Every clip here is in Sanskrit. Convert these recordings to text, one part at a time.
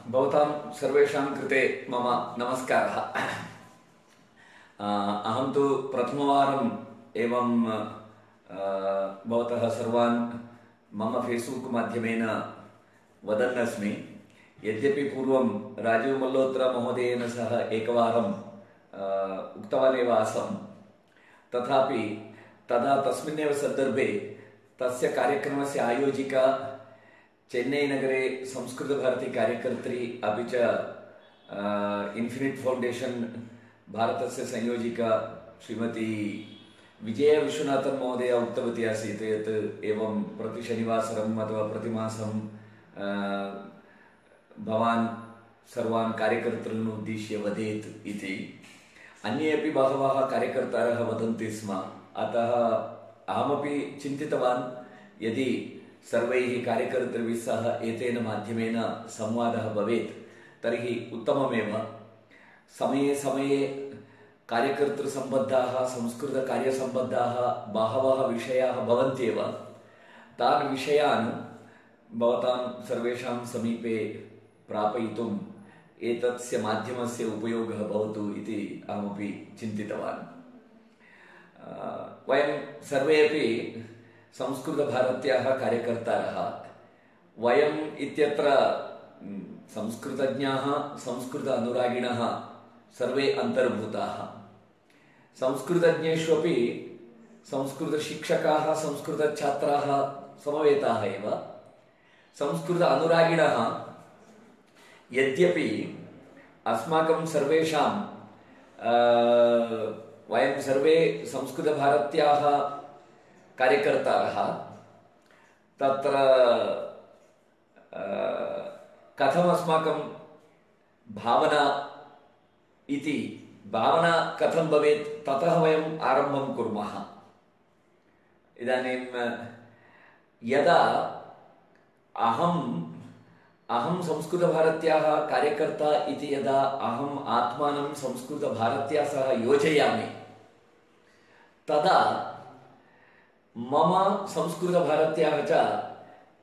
भवतां सर्वेषां कृते मम नमस्कारः। अहं तु प्रथमवारम् एवं भवतः सर्वान् मम फेस्बुक् माध्यमेन वदन् अस्मि। यद्यपि पूर्वं राजीव मल्होत्रा महोदयेन सह एकवारं उक्तवानेव आसम्, तथापि तदा तस्मिन्नेव सन्दर्भे तस्य कार्यक्रमस्य आयोजिका चेन्नैनगरे संस्कृतभारती कार्यकर्त्री अपि च इन्फिनिट् फौण्डेशन् भारतस्य संयोजिका श्रीमती विजयविश्वनाथन् महोदया उक्तवती आसीत् यत् एवं प्रतिशनिवासरम् अथवा प्रतिमासं भवान् सर्वान् कार्यकर्तॄन् उद्दिश्य वदेत् इति। अन्ये अपि बहवः कार्यकर्तारः वदन्ति स्म। अतः अहमपि चिन्तितवान् यदि सर्वैः कार्यकर्तृभिः सह एतेन माध्यमेन संवादः भवेत् तर्हि उत्तममेव। समये समये कार्यकर्तृसम्बद्धाः संस्कृतकार्यसम्बद्धाः बहवः विषयाः भवन्त्येव। तान् विषयान् भवतां सर्वेषां समीपे प्रापयितुम् एतस्य माध्यमस्य उपयोगः भवतु इति अहमपि चिन्तितवान्। वयं सर्वे अपि संस्कृतभारत्याः कार्यकर्तारः। वयम् इत्यत्र संस्कृतज्ञाः, संस्कृत अनुरागिणः सर्वे अन्तर्भूताः। संस्कृतज्ञेष्वपि संस्कृतशिक्षकाः, संस्कृतछात्राः समवेताः एव। संस्कृत अनुरागिणः यद्यपि अस्माकं सर्वेषां वयं सर्वे संस्कृतभारत्याः कार्यकर्तारः, तत्र कथमस्माकं भावना इति भावना कथं भवेत् ततः वयम् आरम्भं कुर्मः। इदानीं यदा अहं संस्कृतभारत्याः कार्यकर्ता इति यदा अहम् आत्मानं संस्कृतभारत्या सह योजयामि तदा मम संस्कृतभारत्याः च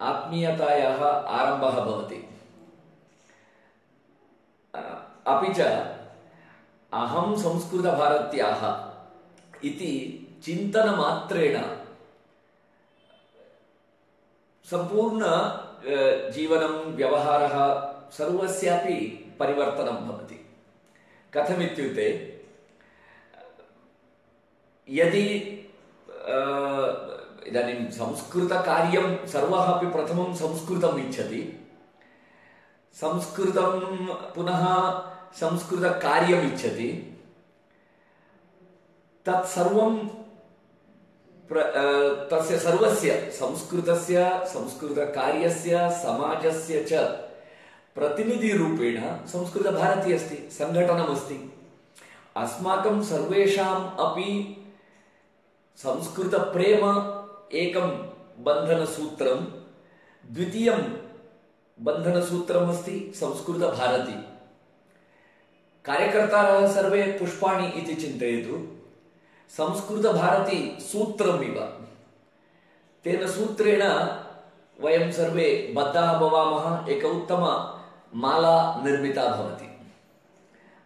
आत्मीयतायाः आरम्भः भवति। अपि च अहं संस्कृतभारत्याः इति चिन्तनमात्रेण सम्पूर्ण जीवनं, व्यवहारः सर्वस्यापि परिवर्तनं भवति। कथमित्युक्ते यदि इदानीं संस्कृतकार्यं सर्वः अपि प्रथमं संस्कृतम् इच्छति, संस्कृतं पुनः संस्कृतकार्यम् इच्छति, तत्सर्वं तस्य सर्वस्य संस्कृतस्य, संस्कृतकार्यस्य, समाजस्य च प्रतिनिधिरूपेण संस्कृतभारती अस्ति, सङ्घटनमस्ति। अस्माकं सर्वेषाम् अपि संस्कृतप्रेम एकं बन्धनसूत्रं, द्वितीयं बन्धनसूत्रमस्ति संस्कृतभारती। कार्यकर्तारः सर्वे पुष्पाणि इति चिन्तयतु। संस्कृतभारती सूत्रमिव। तेन सूत्रेण वयं सर्वे बद्धाः भवामः, एक उत्तमा माला निर्मिता भवति।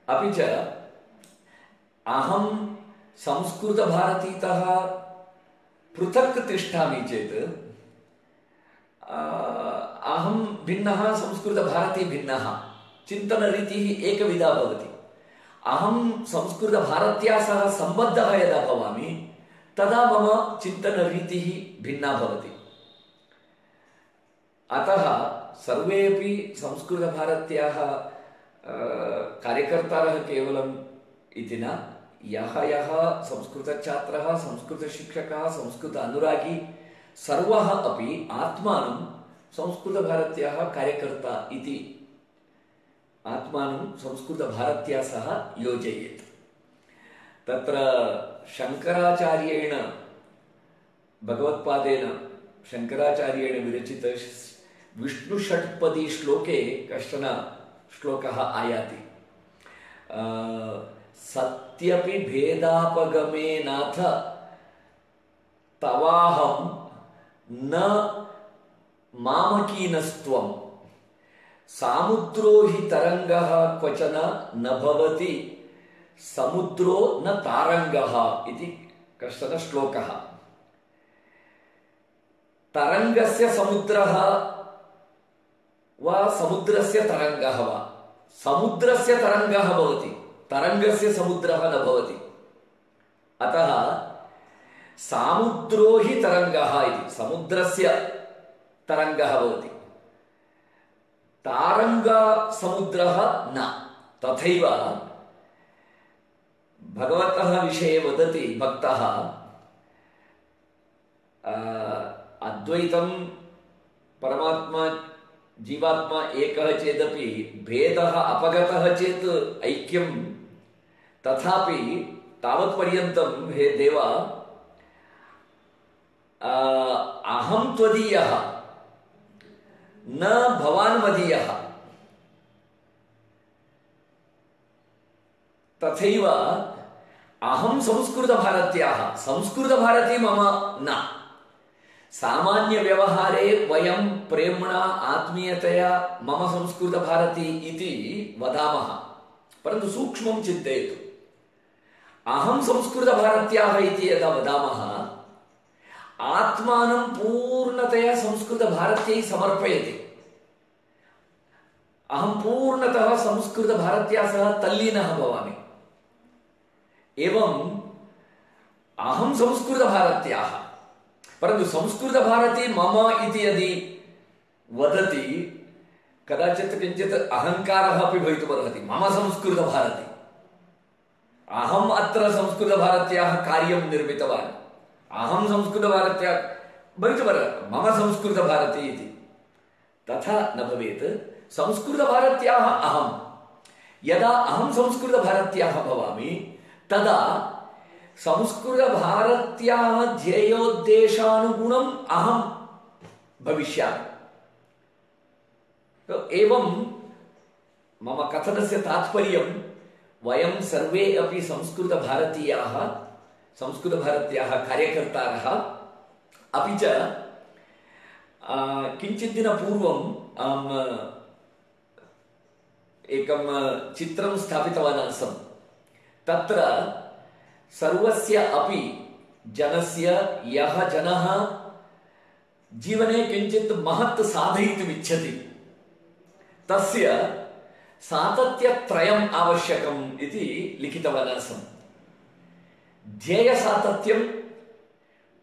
अपि च अहं संस्कृतभारतीतः पृथक् तिष्ठामि चेत् अहं भिन्नः, संस्कृतभारती भिन्नः, चिन्तनरीतिः एकविधा भवति। अहं संस्कृतभारत्या सह सम्बद्धः यदा भवामि तदा मम चिन्तनरीतिः भिन्ना भवति। अतः सर्वेपि संस्कृतभारत्याः कार्यकर्तारः केवलम् इति न, यः संस्कृतछात्रः, संस्कृतशिक्षकः, संस्कृत अनुरागी सर्वः अपि आत्मानं संस्कृतभारत्याः कार्यकर्ता इति आत्मानं संस्कृतभारत्या सह योजयेत्। तत्र शङ्कराचार्येण, भगवत्पादेन शङ्कराचार्येण विरचित विष्णुषट्पदी श्लोके कश्चन श्लोकः आयाति। सत्यपि भेदापगमे नाथ तवाहं न मामकीनस्त्वं सामुद्रो हि तरङ्गः क्वचन न भवति समुद्रो न तारङ्गः इति कश्चन श्लोकः। तरङ्गस्य समुद्रः वा समुद्रस्य तरङ्गः वा, समुद्रस्य तरङ्गः भवति, तरङ्गस्य समुद्रः न भवति। अतः सामुद्रो हि तरङ्गः इति, समुद्रस्य तरङ्गः भवति, तारङ्गसमुद्रः न। तथैव भगवतः विषये वदति भक्तः, अद्वैतं परमात्मा जीवात्मा एकः चेदपि भेदः अपगतः चेत् ऐक्यं, तथापि तावत्पर्यन्तं हे देव अहं त्वदीयः न भवान् मदीयः। तथैव अहं संस्कृतभारत्याः, संस्कृतभारती मम न। सामान्यव्यवहारे वयं प्रेम्णा आत्मीयतया मम संस्कृतभारती इति वदामः, परन्तु सूक्ष्मं चिन्तयतु। अहं संस्कृतभारत्याः इति यदा वदामः, आत्मानं पूर्णतया संस्कृतभारत्यै समर्पयति। अहं पूर्णतः संस्कृतभारत्या सह तल्लीनः भवामि। एवं अहं संस्कृतभारत्याः, परन्तु संस्कृतभारती मम इति यदि वदति कदाचित् किञ्चित् अहङ्कारः अपि भवितुमर्हति। मम संस्कृतभारती, अहम् अत्र संस्कृतभारत्याः कार्यं निर्मितवान्, अहं संस्कृतभारत्या भवितुमर्हति, मम संस्कृतभारती इति। तथा न भवेत्। संस्कृतभारत्याः अहं, यदा अहं संस्कृतभारत्याः भवामि तदा संस्कृतभारत्याः ध्येयोद्देशानुगुणम् अहं भविष्यामि। एवं मम कथनस्य तात्पर्यं, वयं सर्वे अपि संस्कृतभारतीयाः, संस्कृतभारत्याः कार्यकर्तारः। अपि च किञ्चित् दिनपूर्वम् अहम् एकं चित्रं स्थापितवान् आसम्। तत्र सर्वस्य अपि जनस्य, यः जनः जीवने किञ्चित् महत् साधयितुम् इच्छति, तस्य सातत्यत्रयम् आवश्यकम् इति लिखितवान् आसम्। ध्येयसातत्यं,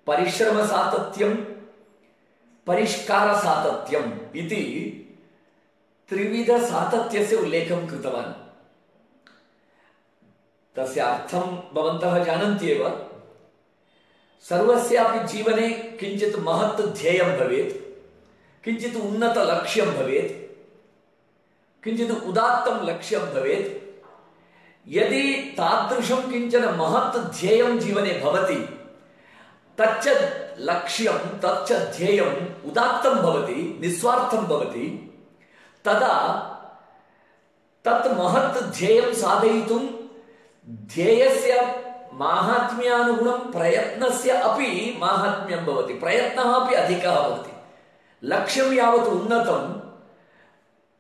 परिश्रमसातत्यं, परिष्कारसातत्यम् इति त्रिविधसातत्यस्य उल्लेखं कृतवान्। तस्य अर्थं भवन्तः जानन्ति एव। सर्वस्यापि जीवने किञ्चित् महत् ध्येयं भवेत्, किञ्चित् उन्नतलक्ष्यं भवेत्, किञ्चित् उदात्तं लक्ष्यं भवेत्। यदि तादृशं किञ्चन महत् ध्येयं जीवने भवति, तच्च लक्ष्यं, तच्च ध्येयम् उदात्तं भवति, निस्वार्थं भवति, तदा तत् महत् ध्येयं साधयितुं ध्येयस्य माहात्म्यानुगुणं प्रयत्नस्य अपि माहात्म्यं भवति, प्रयत्नः अपि अधिकः भवति। लक्ष्यं यावत् उन्नतं,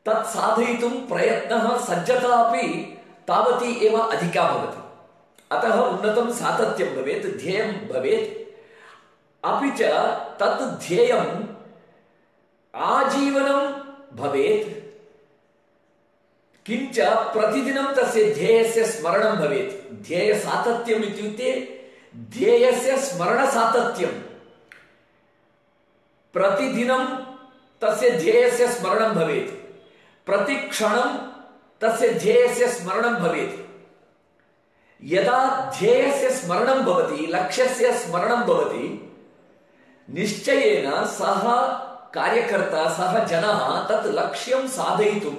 तत् साधयितुं प्रयत्नः, सज्जता अपि तावती एव अधिका भवति। अतः उन्नतं सातत्यं भवेत्, ध्येयं भवेत्। अपि च तत् ध्येयम् आजीवनं भवेत्, किञ्च प्रतिदिनं तस्य ध्येयस्य स्मरणं भवेत्। ध्येयसातत्यम् इत्युक्ते ध्येयस्य स्मरणसातत्यं। प्रतिदिनं तस्य ध्येयस्य स्मरणं भवेत्, प्रतिक्षणं तस्य ध्येयस्य स्मरणं भवेत्। यदा ध्येयस्य स्मरणं भवति, लक्ष्यस्य स्मरणं भवति, निश्चयेन सः कार्यकर्ता, सः जनः तत् लक्ष्यं साधयितुं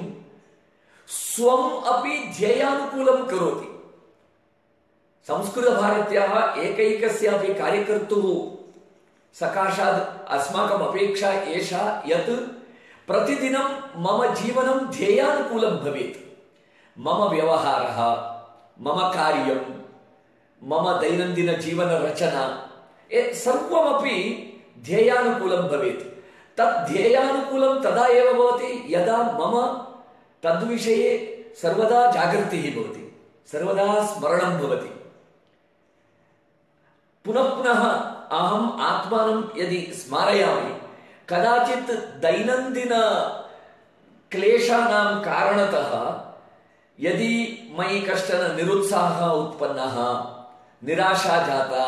स्वम् अपि ध्येयानुकूलं करोति। संस्कृतभारत्याः एकैकस्यापि कार्यकर्तुः सकाशात् अस्माकम् अपेक्षा एषा यत् प्रतिदिनं मम जीवनं ध्येयानुकूलं भवेत्। मम व्यवहारः, मम कार्यं, मम दैनन्दिनजीवनरचना सर्वमपि ध्येयानुकूलं भवेत्। तद् ध्येयानुकूलं तदा एव भवति यदा मम तद्विषये सर्वदा जागृतिः भवति, सर्वदा स्मरणं भवति। पुनः पुनः अहम् आत्मानं यदि स्मारयामि, कदाचित् दैनन्दिन क्लेशानां कारणतः यदि मयि कश्चन निरुत्साहः उत्पन्नः, निराशा जाता,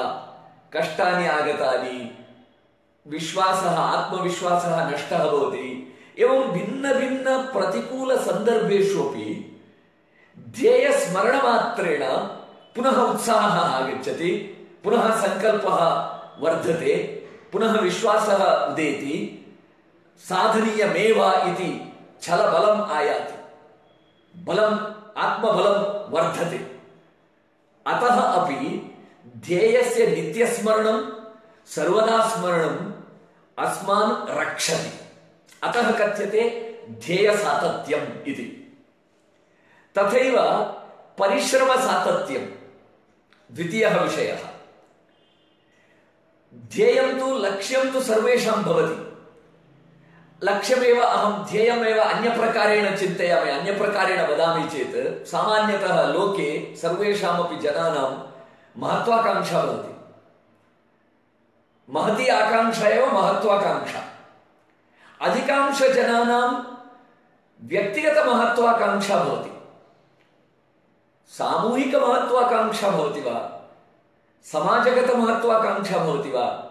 कष्टानि आगतानि, विश्वासः आत्मविश्वासः नष्टः भवति, एवं भिन्न प्रतिकूलसन्दर्भेषु अपि ध्येयस्मरणमात्रेण पुनः उत्साहः आगच्छति, पुनः सङ्कल्पः वर्धते, पुनः विश्वासः उदेति, साधनीयमेव इति छलबलम् आयाति, बलम् आत्मबलं वर्धते। अतः अपि ध्येयस्य नित्यस्मरणं सर्वदा स्मरणम् अस्मान् रक्षति। अतः कथ्यते ध्येयसातत्यम् इति। तथैव परिश्रमसातत्यं द्वितीयः विषयः। ध्येयं तु लक्ष्यं तु सर्वेषां भवति। लक्ष्यमेव अहं ध्येयमेव अन्यप्रकारेण चिन्तयामि, अन्यप्रकारेण वदामि चेत् सामान्यतः लोके सर्वेषामपि जनानां महत्वाकांक्षा भवति। महती आकांक्षा एव महत्वाकांक्षा। अधिकांशजनानां व्यक्तिगतमहत्वाकांक्षा भवति, सामूहिकमहत्वाकांक्षा भवति वा, समाजगतमहत्वाकांक्षा भवति वा,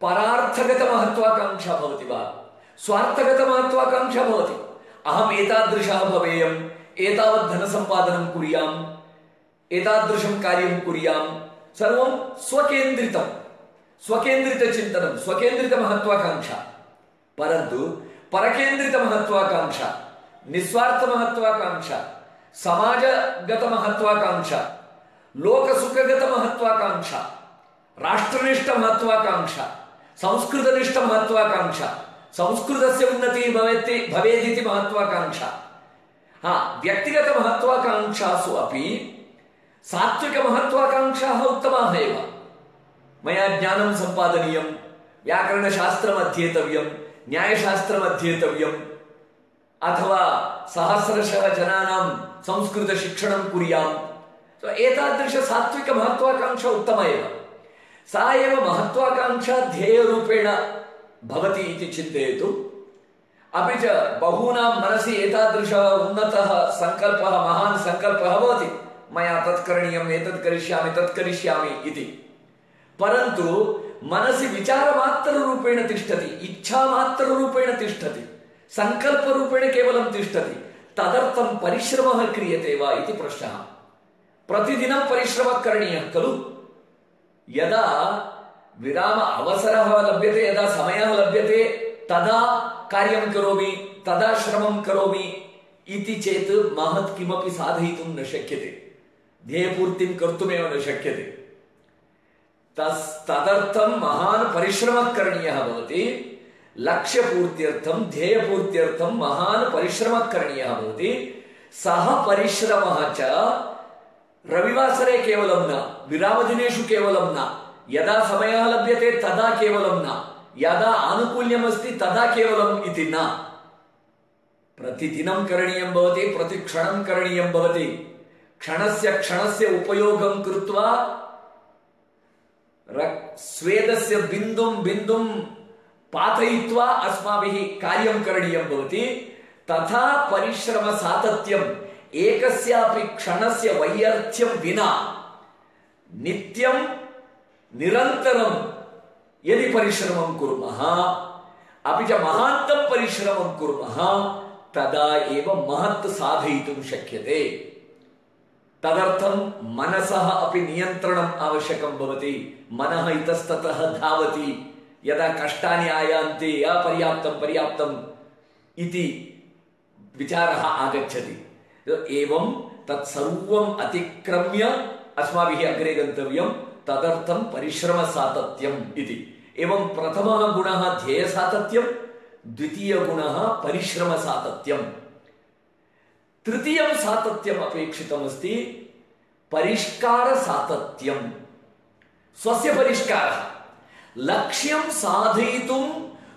परार्थगतमहत्वाकांक्षा भवति वा, स्वार्थगतमहत्वाकांक्षा भवति। अहम् एतादृशः भवेयम्, एतावत् धनसम्पादनं कुर्याम्, एतादृशं कार्यं कुर्याम्, सर्वं स्वकेन्द्रितं, स्वकेन्द्रितचिन्तनं, स्वकेन्द्रितमहत्वाकांक्षा। परन्तु परकेन्द्रितमहत्वाकांक्षा, निस्वार्थमहत्वाकांक्षा, समाजगतमहत्वाकांक्षा, लोकसुखगतमहत्वाकांक्षा, राष्ट्रनिष्ठमहत्वाकांक्षा, संस्कृतनिष्ठमहत्वाकांक्षा, संस्कृतस्य उन्नतिः भवेदिति महत्वाकांक्षा। व्यक्तिगतमहत्वाकांक्षासु अपि सात्विकमहत्वाकांक्षाः उत्तमाः एव। मया ज्ञानं सम्पादनीयं, व्याकरणशास्त्रम् अध्येतव्यं, न्यायशास्त्रम् अध्येतव्यम्, अथवा सहस्रशः जनानां संस्कृतशिक्षणं कुर्याम्। एतादृश सात्विकमहत्वाकांक्षा उत्तमा एव। सा एव महत्वाकांक्षा ध्येयरूपेण भवति इति चिन्तयतु। अपि च बहूनां मनसि एतादृशः उन्नतः सङ्कल्पः, महान् सङ्कल्पः भवति, मया तत् करणीयम्, एतत् करिष्यामि, तत् करिष्यामि इति। परन्तु मनसि विचारमात्ररूपेण तिष्ठति, इच्छामात्ररूपेण तिष्ठति, सङ्कल्परूपेण केवलं तिष्ठति। तदर्थं परिश्रमः क्रियते वा इति प्रश्नः। प्रतिदिनं परिश्रमः करणीयः खलु। यदा विराम अवसरः लभ्यते, यदा समयः लभ्यते, तदा कार्यं करोमि, तदा श्रमं करोमि इति चेत् महत् किमपि साधयितुं न शक्यते, ध्येयपूर्तिं कर्तुमेव न शक्यते। तदर्थं महान् परिश्रमः करणीयः भवति। लक्ष्यपूर्त्यर्थं, ध्येयपूर्त्यर्थं महान् परिश्रमः करणीयः भवति। सः परिश्रमः च रविवासरे केवलं न, विरामदिनेषु केवलं न, यदा समयः लभ्यते तदा केवलं न, यदा आनुकूल्यमस्ति तदा केवलम् इति न, प्रतिदिनं करणीयं भवति, प्रतिक्षणं करणीयं भवति। क्षणस्य क्षणस्य उपयोगं कृत्वा स्वेदस्य बिन्दुं बिन्दुं पातयित्वा अस्माभिः कार्यं करणीयं भवति। तथा परिश्रमसातत्यम् एकस्यापि क्षणस्य वैयर्थ्यं विना नित्यं निरन्तरं यदि परिश्रमं कुर्मः, अपि च महान्तं परिश्रमं कुर्मः, तदा एव महत् साधयितुं शक्यते। तदर्थं मनसः अपि नियन्त्रणम् आवश्यकं भवति। मनः इतस्ततः धावति, यदा कष्टानि आयान्ति, पर्याप्तं पर्याप्तम् इति विचारः आगच्छति। एवं तत्सर्वम् अतिक्रम्य अस्माभिः अग्रे गन्तव्यं। तदर्थं परिश्रमसातत्यम् इति। एवं प्रथमः गुणः ध्येयसातत्यं, द्वितीयगुणः परिश्रमसातत्यम्। तृतीयं सातत्यम् अपेक्षितमस्ति परिष्कारसातत्यम्। स्वस्य परिष्कारः, लक्ष्यं साधयितुं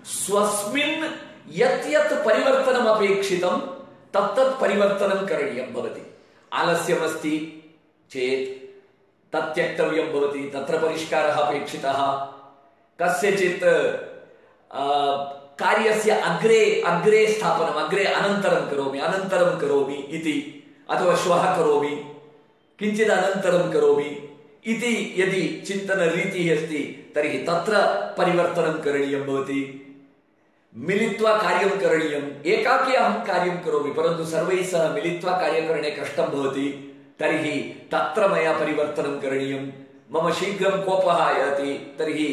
स्वस्मिन् यत् यत् परिवर्तनम् अपेक्षितं तत्तत् परिवर्तनं करणीयं भवति। आलस्यमस्ति चेत् तत् त्यक्तव्यं भवति, तत्र परिष्कारः अपेक्षितः। कस्यचित् कार्यस्य अग्रे स्थापनम्, अनन्तरं करोमि इति, अथवा श्वः करोमि, किञ्चित् अनन्तरं करोमि इति यदि चिन्तनरीतिः अस्ति तर्हि तत्र परिवर्तनं करणीयं भवति। मिलित्वा कार्यं करणीयम्। एकाकी अहं कार्यं करोमि परन्तु सर्वैः सह मिलित्वा कार्यकरणे कष्टं भवति, तर्हि तत्र मया परिवर्तनं करणीयं। मम शीघ्रं कोपः आयाति, तर्हि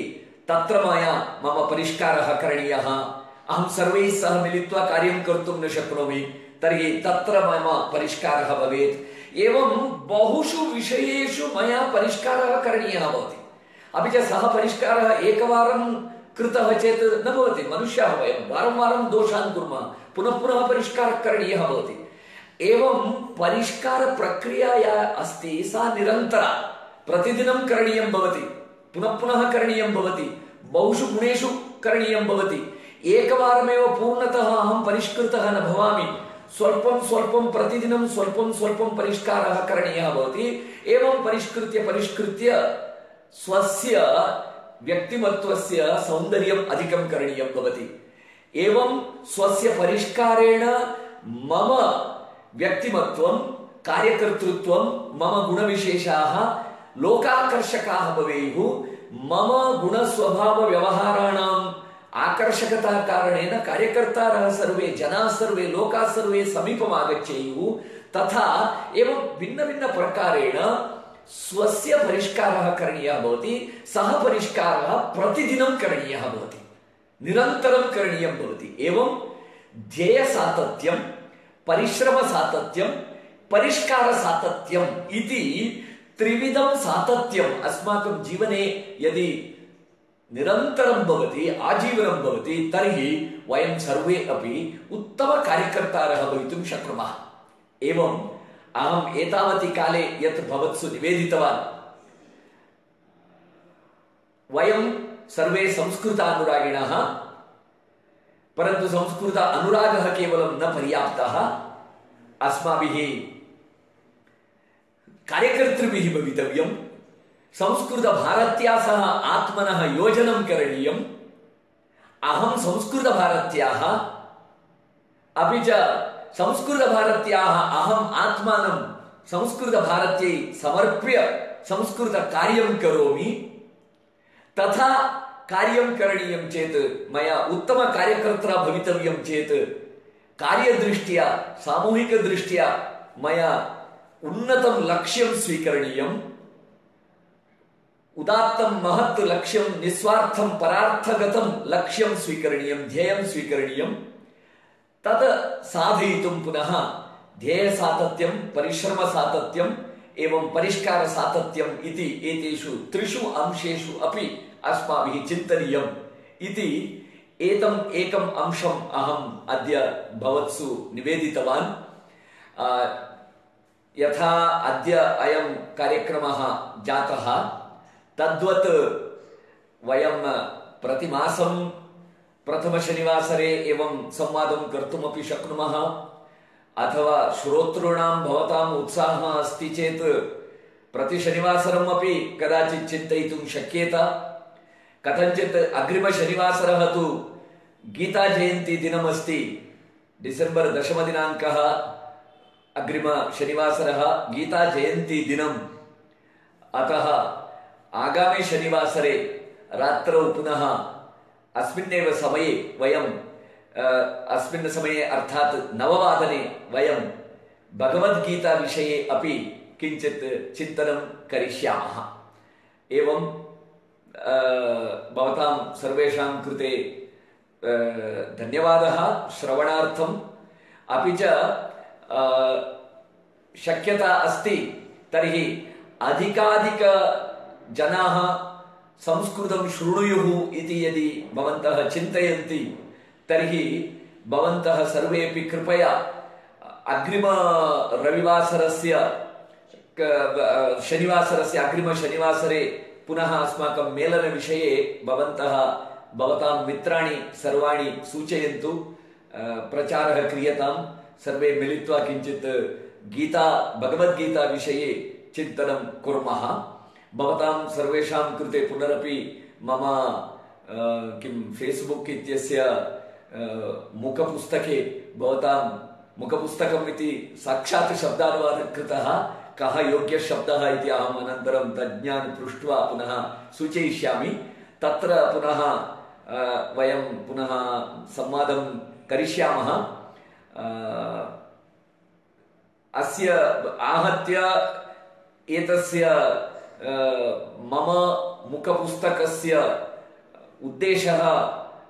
तत्र मया मम परिष्कारः करणीयः। अहं सर्वैः सह मिलित्वा कार्यं कर्तुं न शक्नोमि, तर्हि तत्र मम परिष्कारः भवेत्। एवं बहुषु विषयेषु मया परिष्कारः करणीयः भवति। अपि च सः परिष्कारः एकवारं कृतः चेत् न भवति। मनुष्याः वयं वारं वारं दोषान् कुर्मः, पुनः पुनः परिष्कारः करणीयः भवति। एवं परिष्कारप्रक्रिया या अस्ति सा निरन्तरा, प्रतिदिनं करणीयं भवति, पुनः पुनः करणीयं भवति, बहुषु गुणेषु करणीयं भवति। एकवारमेव पूर्णतः अहं परिष्कृतः न भवामि, स्वल्पं स्वल्पं प्रतिदिनं स्वल्पं स्वल्पं परिष्कारः करणीयः भवति। एवं परिष्कृत्य स्वस्य व्यक्तिमत्वस्य सौन्दर्यम् अधिकं करणीयं भवति। एवं स्वस्य परिष्कारेण मम व्यक्तिमत्वं, कार्यकर्तृत्वं, मम गुणविशेषाः लोकाकर्षकाः भवेयुः। मम गुणस्वभावव्यवहाराणाम् आकर्षकता कारणेन कार्यकर्तारः सर्वे, जनाः सर्वे, लोकाः सर्वे समीपम् आगच्छेयुः। तथा एवं भिन्नभिन्नप्रकारेण स्वस्य परिष्कारः करणीयः भवति। सः परिष्कारः प्रतिदिनं करणीयः भवति, निरन्तरं करणीयं भवति। एवं ध्येयसातत्यं, परिश्रमसातत्यं, परिष्कारसातत्यम् इति त्रिविधं सातत्यम् अस्माकं जीवने यदि निरन्तरं भवति, आजीवनं भवति, तर्हि वयं सर्वे अपि उत्तमकार्यकर्तारः भवितुं शक्नुमः। एवम् अहम् एतावति काले यत् भवत्सु निवेदितवान्, वयं सर्वे संस्कृतानुरागिणः, परन्तु संस्कृत अनुरागः केवलं न पर्याप्तः। अस्माभिः कार्यकर्तृभिः भवितव्यं। संस्कृतभारत्या सह आत्मनः योजनं करणीयम्। अहं संस्कृतभारत्याः, अपि च संस्कृतभारत्याः अहम् आत्मानं संस्कृतभारत्यै समर्प्य संस्कृतकार्यं करोमि। तथा कार्यं करणीयं चेत्, मया उत्तमकार्यकर्ता भवितव्यं चेत्, कार्यदृष्ट्या, सामूहिकदृष्ट्या मया उन्नतं लक्ष्यं स्वीकरणीयम्। उदात्तं महत् लक्ष्यं, निस्वार्थं परार्थगतं लक्ष्यं स्वीकरणीयं, ध्येयं स्वीकरणीयं। तद् साधयितुं पुनः ध्येयसातत्यं, परिश्रमसातत्यम् एवं परिष्कारसातत्यम् इति एतेषु त्रिषु अंशेषु अपि अस्माभिः चिन्तनीयम् इति एतम् एकम् अंशम् अहम् अद्य भवत्सु निवेदितवान्। यथा अद्य अयं कार्यक्रमः जातः, तद्वत् वयं प्रतिमासं प्रथमशनिवासरे एवं संवादं कर्तुमपि शक्नुमः। अथवा श्रोतॄणां भवताम् उत्साहः अस्ति चेत् प्रतिशनिवासरम् अपि कदाचित् चिन्तयितुं शक्येत। कथञ्चित् अग्रिमशनिवासरः तु गीताजयन्ती दिनमस्ति, डिसेम्बर् 10 दिनाङ्कः अग्रिमशनिवासरः गीताजयन्ती दिनम्। अतः आगामि शनिवासरे रात्रौ पुनः अस्मिन्नेव समये वयं अस्मिन् समये अर्थात् 9 वयं भगवद्गीता विषये अपि किञ्चित् चिन्तनं करिष्यामः। एवं भवतां सर्वेषां कृते धन्यवादः श्रवणार्थम्। अपि च शक्यता अस्ति तर्हि अधिकाधिकजनाः संस्कृतं शृणुयुः इति यदि भवन्तः चिन्तयन्ति तर्हि भवन्तः सर्वेपि कृपया अग्रिमरविवासरस्य शनिवासरस्य अग्रिमशनिवासरे पुनः अस्माकं मेलनविषये भवन्तः भवतां मित्राणि सर्वाणि सूचयन्तु, प्रचारः क्रियतां, सर्वे मिलित्वा किञ्चित् भगवद्गीता विषये चिन्तनं कुर्मः। भवतां सर्वेषां कृते पुनरपि मम फेस्बुक् इत्यस्य मुखपुस्तके भवतां मुखपुस्तकम् इति साक्षात् शब्दानुवादः कृतः, कः योग्यशब्दः इति अहम् अनन्तरं तज्ञान् पृष्ट्वा पुनः सूचयिष्यामि। तत्र पुनः वयं पुनः संवादं करिष्यामः। अस्य आहत्य एतस्य मम मुखपुस्तकस्य उद्देशः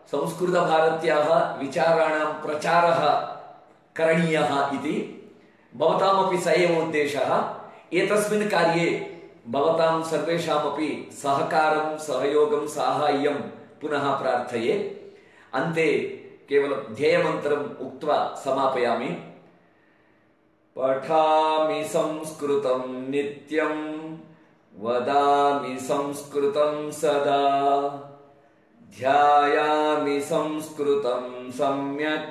संस्कृतभारत्याः विचाराणां प्रचारः करणीयः इति। भवतामपि स एव उद्देशः। एतस्मिन् कार्ये भवतां सर्वेषामपि सहकारं, सहयोगं, साहाय्यं पुनः प्रार्थये। अन्ते केवलं ध्येयमन्त्रम् उक्त्वा समापयामि। पठामि संस्कृतं नित्यं, वदामि संस्कृतं सदा, ध्यायामि संस्कृतं सम्यक्,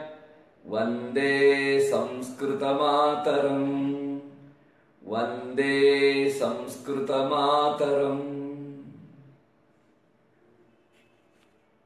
वन्दे संस्कृतमातरम्, वन्दे संस्कृतमातरम्।